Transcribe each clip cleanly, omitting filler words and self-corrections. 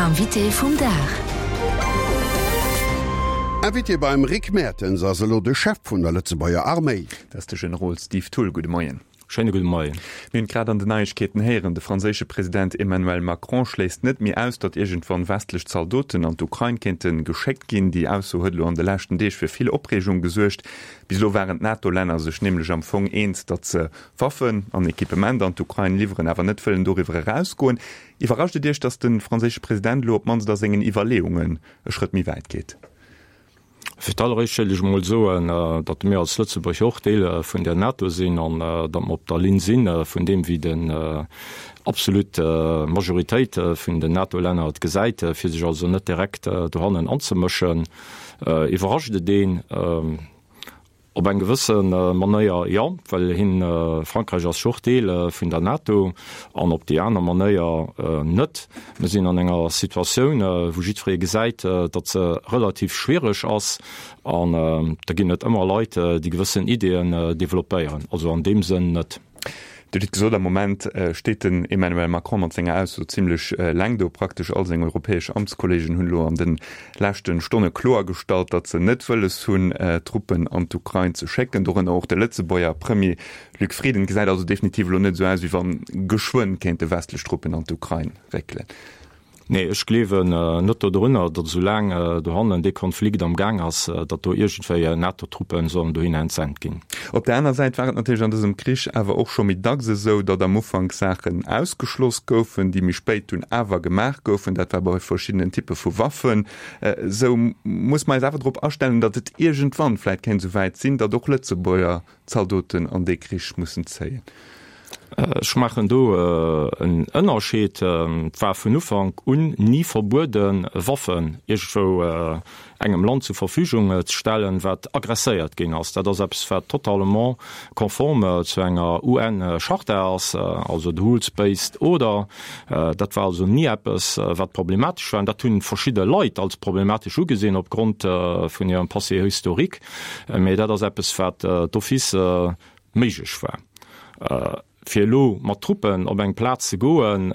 Invité vum Dag. Invité beim Rick Mertens ass elo de Chef vun der Lëtzebuerger Arméi. Dat ass de Generol Steve Thull. Gudde Moien. Schéine gudde Moien. Mir hunn et grad an den Neiegkeeten héieren, de franséische President Emmanuel Macron schléisst net méi aus, datt iergendwann westlech Zaldoten an d'Ukrain kéinte geschéckt ginn. Déi Ausso huet elo an de leschten Deeg fir vill Opreegung gesuergt. Bis elo waren d'NATO-Länner sech nämlech am Fong eens, datt se Waffen an Equipement an d'Ukrain liwweren, awer net wëllen doriwwer erausgoen. Iwwerrascht et Iech, datt de franséische President elo op d'mannst a sengen Iwwerleeungen e Schrëtt méi wäit geet? Fir d'alleréischt wéilt ech emol soen, datt mir als Lëtzebuerg och Deel vun der NATO sinn an datt mer op der Linn si vun deem, wéi den absolut Majoritéit vun den NATO-Länner et gesäit, fir sech also net direkt dohannen anzemëschen. Iwwerrascht et een? Op eng gewësse Manéier jo, well hien, Frankräich ass jo och Deel vun der NATO, an op déi aner Manéier net. Mir sinn an enger Situatioun, wou jiddweree gesäit, datt se relativ schwiereg ass, an da ginn et ëmmer Leit, déi gewëssen Ideeën developpéieren. Also an deem Sënn net. Dir hutt et gesot, am Moment steet den Emmanuel Macron mat senger Ausso zimlech eleng do. Praktesch all seng europäesch Amtskollegen hunn elo an de leschte Stonne kloergestallt, datt se net wëlles hunn, Truppen an d'Ukrain ze schécken, dorënner och de Lëtzebuerger Premier Luc Frieden. Et gesäit also definitiv elo net esou aus, wéi wann geschwënn kéinte westlech Truppen an d'Ukrain réckelen. Nee, ech gleewen net dodrunner, datt esou laang dohannen dee Konflikt am Gaang ass, datt do iergendwéi NATO-Truppen sollen dohinner entsent ginn. Op der aner Säit war et natierlech an dësem Krich awer och scho méi dacks esou, datt am Ufank Saachen ausgeschloss goufen, déi méi spéit dunn awer gemaach goufen. Dat war bei verschiddenen Typpe vu Waffen esou. Muss mer eis awer drop astellen, datt et iergendwann vläicht kéint esou wäit sinn, datt och Lëtzebuerger Zaldoten an dee Krich mussen zéien. Ech maachen do en Ënnerscheed. Et war vun Ufank un ni verbueden, Waffen iergendwou engem Land zur Verfügung ze stellen, wat aggresséiert ginn ass. Dat ass eppes, wat totalement conforme zu enger UN-Charta ass, also de Rules-based Order. Dat war also ni eppes, wat problematesch war. An dat hu verschidde Leit als problematesch ugesinn opgrond vun hirem Passé historique. Mee dat ass eppes, wat d'office méiglech war. Fir elo mat Truppen op eng Plaz ze goen,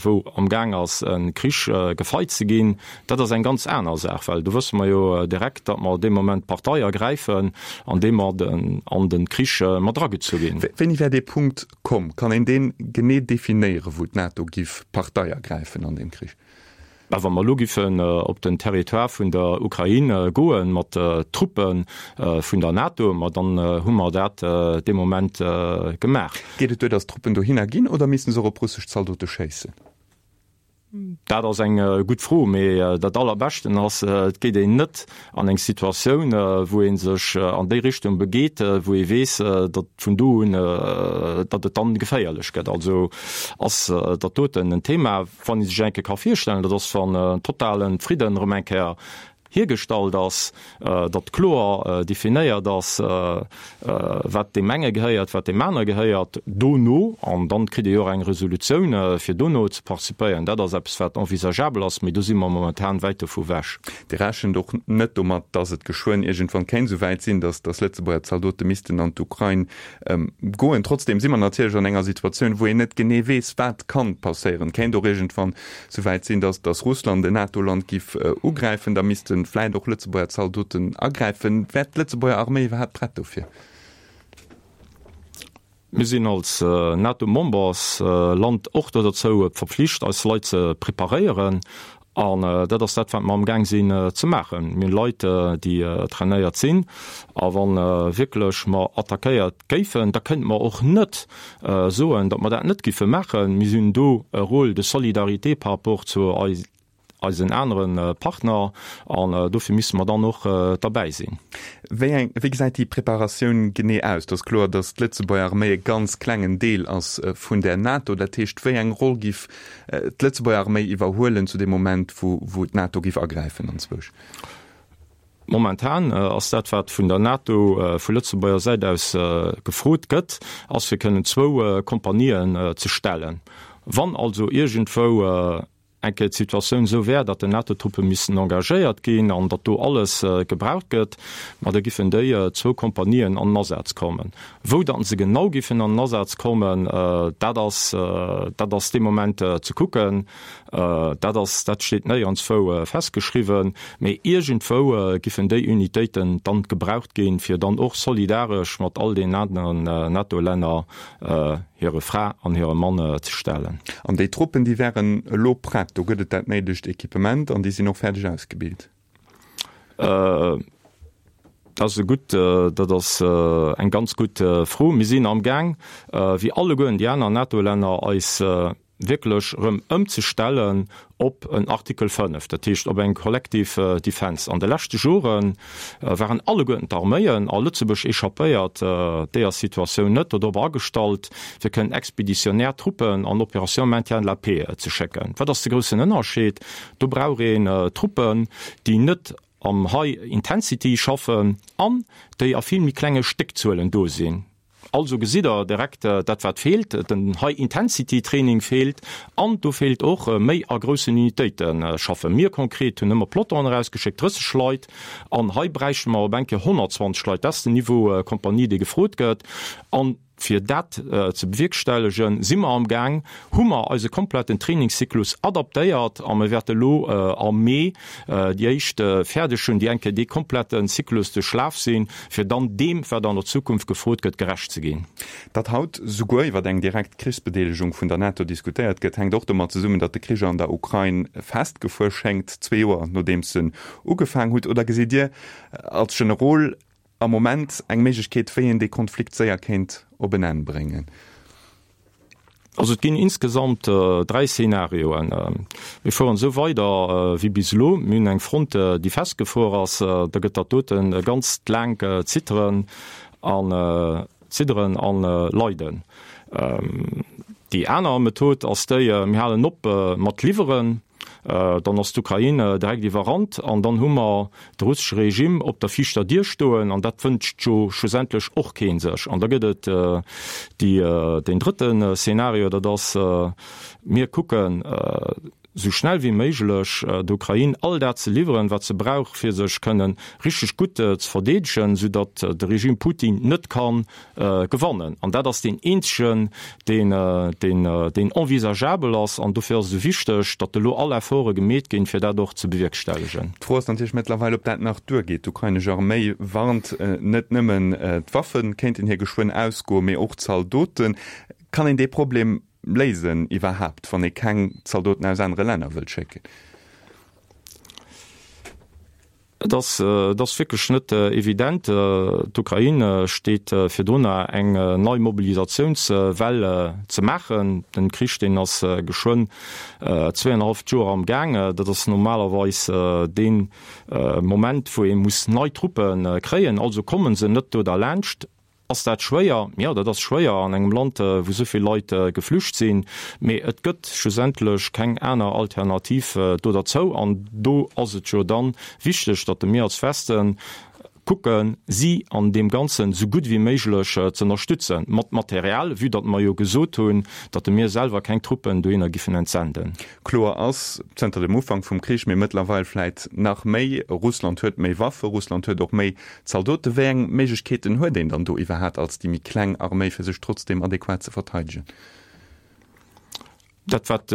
wou amgaang ass e Krich gefeit ze ginn, dat ass eng ganz aner Saach, well do wësse mer jo direkt, datt mer dee Moment Partei ergräifen, andeem mer an de Krich mat eragezu ginn. Wéini wär dee Punkt komm? Kann een dee genee definéieren, wou d'NATO giff Partei ergräifen an deem Krich? Mä wa mer elo giffen op den Territoire vun der Ukrain goe mat Truppe vun der NATO, ma dann hu mer dat dee Moment gemaach. Geet et duer, datt d'Truppen dohinner ginn, oder misste se och op russesch Zaldote schéissen? Dat ass eng gutt Fro. Mee dat Allerbeschten ass, et geet een net an eng Situatioun, wou ee sech an déi Richtung begeet, wou ee weess, datt vun do un, datt et dann geféierlech gëtt. Also ass dat doten en Thema. Wann ee sech eng Kéier ka virstellen, dat ass, wann en totale Fridden erëm eng Kéier hiergestallt ass, datt kloer definéiert ass, wat deem enge gehéiert, wat deem anere gehéiert, dono, an dann kritt ee jo och eng Resolutioun, fir dono ze participéieren, dat ass eppes, wat envisageabel ass, mee do si mer momentan wäit dovu wech. Dir rechent och net domat, datt et geschwënn iergendwann kéint esou wäit sinn, datt Lëtzebuerger Zaldote missten an d'Ukrain Goen. Trotzdem si mer natierlech an enger Situatioun, wou een net genee weess, wat kann passéieren. Et kéint och iergendwann souwäit sinn, datt datt Russland en NATO-Land giff ugräifen. Da misste vläit och Lëtzebuerger Zaldoten agräifen. Wär d'Lëtzebuerger Arméi iwwerhaapt prett dofir? Mir sinn als NATO-Membersland och do derzou verpflicht, eis Leit ze preparéieren. An dat ass dat, wat mer amgaang sinn ze maachen. Mir hunn Leit, déi trainéiert sinn. A wa wierklech mer attackéiert géifen, da kënnte mer och net soen, datt mer dat net giffe maachen. Mir hunn do e Rôle de solidarité par rapport zu eisen anere Partner an dofir misse mer dann och derbäi sinn. Wéi eng, wéi gesäit déi Preparatioun genee aus? Et ass kloer, datt d'Lëtzebuerger Arméi e ganz klengen Deel ass vun der NATO. Dat heescht, wéi eng Roll giff d'Lëtzebuerger Arméi iwwerhuelen zu deem Moment, wou d'NATO géif agräifen anzwousch? Momentan ass dat, wat vun der NATO vu Lëtzebuerger Säit aus gefrot gëtt, ass fir kënnen zwou Kompanien ze stellen. Wann also iergendwou. eng Kéier d'Situatioun esou wär, datt den NATO-Truppe missten engagéiert ginn an datt do alles gebraucht gëtt, ma da giffen déi zwou Kompanien an den Asaz kommen. Wou datt se genau giffen an den Asaz kommen, dat ass, dat ass dee Moment ze kucken. Dat ass, dat steet néierenswou festgeschriwwen. Mee iergendwou giffen déi Unitéiten dann gebraucht ginn, fir dann och solidaresch mat all deenen aneren NATO-Länner hire Fra an hire Mann ze stellen. An déi Truppen, déi wären elo prett, do gëtt et dat néidegt Equipement an déi sinn och fäerdeg ausgebilt? Dat ass e gutt, dat ass eng ganz gutt Fro. Mir sinn amgaang, wéi alleguerten déi aner NATO-Länner, eis wierklech erëm ëmzestellen op en Artikel 5, dat heescht op eng collective defense. An de leschte Jore waren alleguerten d'Arméien, a Lëtzebuerg échappéiert deeër Situatioun net, dodrop agestallt, fir kënnen expéditionnaire Truppen an Opération maintien de la paix ze schécken. Wat ass de groussen Ënnerscheed? Do brauch een Truppen, déi net am High Intensity schaffen an déi a vill méi klenge Stéckzuelen do sinn. Also gesitt Der direkt dat wat feelt, den High Intensity Training feelt an do feelt och méi a groussen Unitéite schaffen. Mir konkret hunn ëmmer Pelotonen erausgeschéckt, 30 Leit, an hei bräichte mer op eng Kéier 120 Leit. Dat ass den Niveau Kompanie, dee gefrot gëtt. An fir dat ze bewierkstellegen, si mer amgaang, hu mer eise kompletten Trainingszyklus adaptéiert a mir wäerte lo am Mee déi éischt fäerdeg hunn, déi eng Kéier dee kompletten Zyklus duerchlaf sinn, fir dann deem, wat an der Zukunft gefrot gëtt, gerecht ze ginn. Datt haut souguer iwwer eng direkt Krichsbedeelegung vun der NATO diskutéiert gëtt, hänkt och domat zesummen, datt de Krich an der Ukrain festgefuer schéngt, zwee Joer nodeems en ugefaang hutt. Oder gesitt Dir als Generol am Moment eng Méiglechkeet, wéi een dee Konflikt séier kéint op en Enn bréngen? Also et ginn insgesamt 3 Szenarioen. Mir fueren esou weider wéi bis elo. Mir hunn eng Front, déi festgefuer ass. Da gëtt dat doten e ganzt laangt Zitteren an Zidderen an Leiden. Déi aner Method ass déi, mir halen op mat liwweren. Dann ass d'Ukrain direkt iwwerrannt an dann hu mer de russesche Regime op der viischter Dier stoen an dat wënscht jo schlussendlech och kee sech. An da gëtt et déi, deen drëtte Szenario, dat ass, mir kucken esou schnell wéi méiglech der Ukrain all dat ze liwweren, wat se brauch, fir sech kënnen richteg gutt ze verdeedegen, soudatt de Regime Putin net kann gewannen. An dat ass deen eenzegen, deen, deen, deen envisageabel ass. An dofir ass et esou wichteg, datt elo all Efforte gemeet ginn, fir dat och ze bewierkstellegen. D'Fro ass natierlech mëttlerweil, ob dat nach duergeet. D'ukrainesch Arméi warnt, net nëmmen d'Waffe kéinten hir geschwënn ausgoen, mee och d'Zaldoten. Kann een dee Problem léisen iwwerhaapt, wann ee keng Zaldoten aus anere Länner wëllt schécken? Et ass, et ass wierklech net evident. D'Ukrain steet virdrunner, eng nei Mobilisatiounswell ze maachen. Den Krich, deen ass geschwënn zweeënhalleft Joer am Gaang. Dat ass normalerweis dee Moment, wou ee muss nei Truppe kréien. Also komme se net do derlaanscht. Ass dat schwéier? Jo, dat ass schwéier an engem Land, wou esou vill Leit geflücht sinn. Mee et gëtt schlussendlech keng aner Alternativ do derzou. An do ass et jo dann wichteg, datt mir als Westen kucken, si an deem Ganzen esou gutt wéi méiglech ze ënnerstützen, mat Material, vue datt mer jo gesot hunn, datt mir selwer keng Truppen dohinner giffen entsenden. Kloer ass, zënter dem Ufank vum Krich, mee mëttlerweil vläit nach méi, Russland huet méi Waffe, Russland huet och méi Zaldoten. Wéi eng Méiglechkeeten huet een dann do iwwerhaat als déi méi kleng Arméi, fir sech trotzdeem adequat ze verteidegen? Dat, wat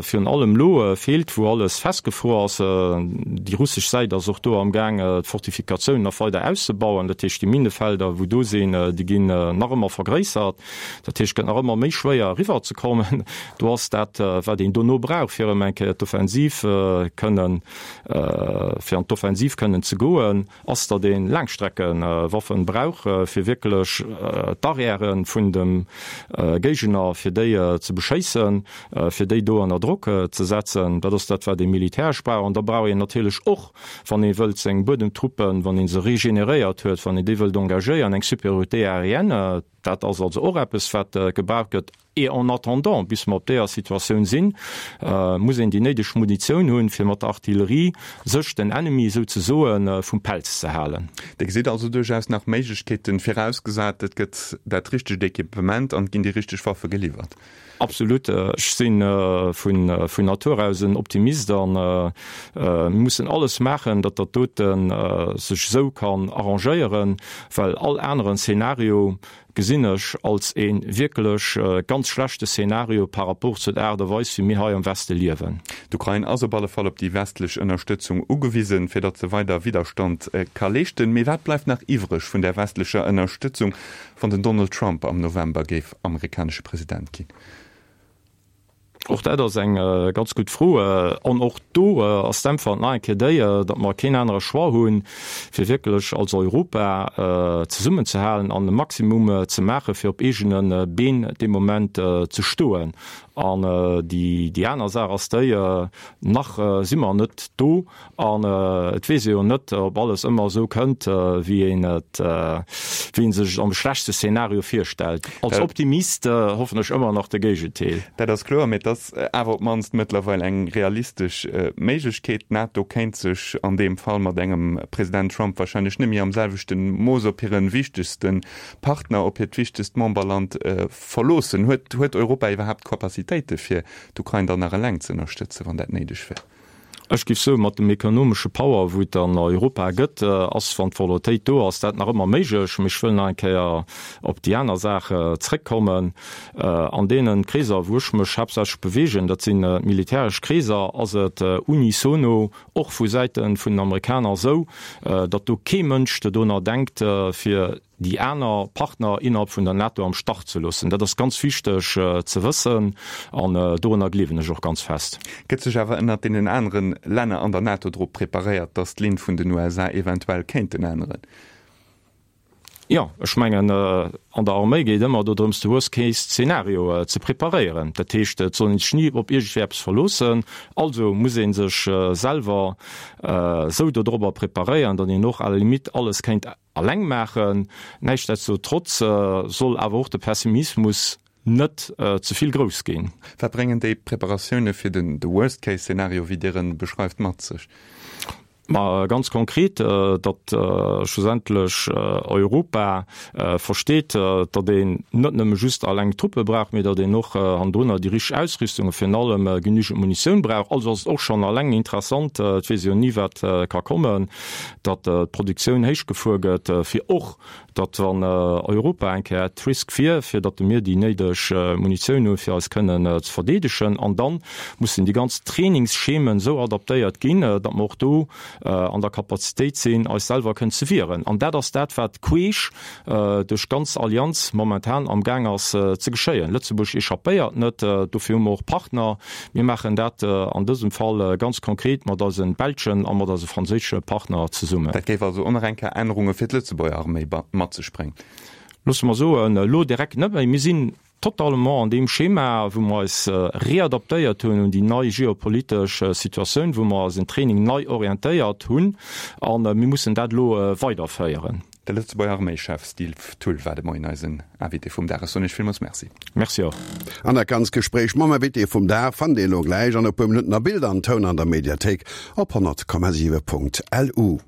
virun allem elo feelt, wou alles festgefruer ass, déi russesch Säit ass och do amgaang, d'Fortifikatiounen nach weider auszebauen. Dat heescht, déi Minnefelder, wou do sinn, déi ginn nach ëmmer vergréissert. Dat heescht, et gëtt nach ëmmer méi schwéier eriwwerzekommen. Do ass dat, wat een dono brauch, fir erëm eng Kéier d'Offensiv kënnen, fir an d'Offensiv kënnen ze goen, ass, datt ee Laangstreckewaffen brauch, fir wierklech d'Arrièren vun dem Géigner, fir déi ze beschéissen, fir déi do ënner Drock ze setzen. Dat ass dat, wat ee militäresch brauch. An da brauch een natierlech och, wann ee wëllt seng Buedemtruppen, wann ee se regeneréiert huet, wann een déi wëllt engagéieren, eng Supériorité aérienne. Dat ass also och eppes, wat gebraucht gëtt. Et en attendant, bis mer op deeër Situatioun sinn, muss een déi néideg Munitioun hunn, fir mat der Artillerie sech den Ennemi souzesoe vum Pelz ze halen. Dir gesitt also duerchaus nach Méiglechkeeten, virausgesat et gëtt dat richtegt Equipement an et ginn déi richteg Waffe geliwwert. Absolut. Ech si vun Natur aus en Optimist a mir mussen alles maachen, datt dat dote sech esou kann arrangéieren, well all aneren Szenario gesinn ech als ee wierklech ganz schlechte Szenario par rapport zu der Aart a Weis, wéi mir hei am Weste liewen. D'Ukrain ass op alle Fall op déi westlech Ënnerstëtzung ugewisen, fir datt se weider Widderstand ka leeschten. Mee wat bleift nach iwwreg vun där westlecher Ënnerstëtzung, wann den Donald Trump am November géif amerikanesche President ginn? Och dat ass eng ganz gutt Fro. An och do ass d'Äntwert nach eng Kéier déi, datt mer keen anere Choix hunn, fir wierklech als Europa zesummenzehalen an e Maximum ze maachen, fir op eegene Been dee Moment ze stoen. An déi aner Saach ass déi, Nach si mer net do, An et weess ee jo net, ob alles ëmmer esou kënnt, wéi een et, wéi ee sech et am schlechtste Szenario virstellt. Als Optimist hoffen ech ëmmer nach de Géigendeel. Dat ass kloer, mee et ass awer op d'mannst mëttlerweil eng realistesch Méiglechkeet. D'NATO kéint sech an deem Fall mat engem President Trump warscheinlech net méi am selwechte Mooss op hire wichtegste Partner, op hiert wichtegst Memberland verloossen. Huet, huet Europa iwwerhaapt d'Capacitéite fir d'Ukrain dann nach eleng ze ënnerstëtzen, wann dat néideg wär? Ech géif soen, mat dem ekonomesche Power, wou et an Europa gëtt, ass, wann d'Volontéit do ass, dat nach ëmmer méiglech. Mee ech wëll nach eng Kéier op déi aner Saach zrëckkommen. An deene Kreeser, wou ech mech haaptsächlech bewegen, dat sinn d'militäresch Kreeser, ass et unisono och vu Säite vun den Amerikaner esou, datt do kee Mënsch dodonner denkt, fir déi aner Partner innerhalb vun der NATO am Stach ze loossen. Dat ass ganz wichteg ze wëssen an dorunner gleewen ech och ganz fest. Gëtt sech awer ënnert deenen anere Länner an der NATO drop preparéiert, datt d'Linn vun den USA eventuell kéinten änneren? Jo, ech mengen, an der Arméi geet ëmmer dodrëms, de Worst-Case-Szenario ze preparéieren. Dat heescht, et soll een sech ni op iergendwéi eppes verloossen. Also muss ee sech selwer esou dodrobber preparéieren, datt een och à la limite alles kéint Alleng maachen. Näischtdestotrotz soll awer och de Pessimismus net ze vill grouss ginn. Wat bréngen déi Preparatioune fir den de Worst Case Szenario, wéi Dir en beschreift, mat sech? Ma ganz konkret, datt schlussendlech Europa versteet, datt een net nëmme just alleng Truppe brauch, mee datt een och hannendrunner déi richteg Ausrüstung a virun allem genügend Munitioun brauch. Also ass et och schonn alleng interessant, et weess ee jo ni wat ka kommen, datt d'Produktioun héich gefuer gëtt, fir och, datt wann Europa eng Kéier at risk wier, fir datt mir déi néideg Munitioun hunn, fir eis kënnen ze verdeedegen. An da mussen déi ganz Trainingsschemen esou adaptéiert ginn, datt mer och do an der Kapazitéit sinn, eis selwer kënnen ze wieren. An dat ass dat, wat queesch duerch d'ganz Allianz momentan am Gaang ass ze geschéien. Lëtzebuerg échappéiert net, dofir hu mer och Partner. Mir maachen dat an dësem Fall ganz konkret mat eise belschen a mat eise franséische Partner zesummen. Dat géif also och nach eng Kéier Ännerunge fir d'Lëtzebuerger Arméi mat sech bréngen. Loosse mer soen, elo direkt net méi. Mir sinn totalement an deem Schema, wou mer eis readaptéiert hunn un déi nei geopolitesch Situatioun, wou mer eisen Training nei orientéiert hunn a mir mussen dat elo weiderféieren. De Lëtzebuerger Arméischef Steve Thull war de Moien eisen Invité vum Dag. Ech soen Iech villmools Merci. Merci och. An dat ganzt Gespréich mam Invité vum Dag fannt Dir elo gläich an e puer Minutten a Bild an Toun an der Mediathéik op 100,7.lu.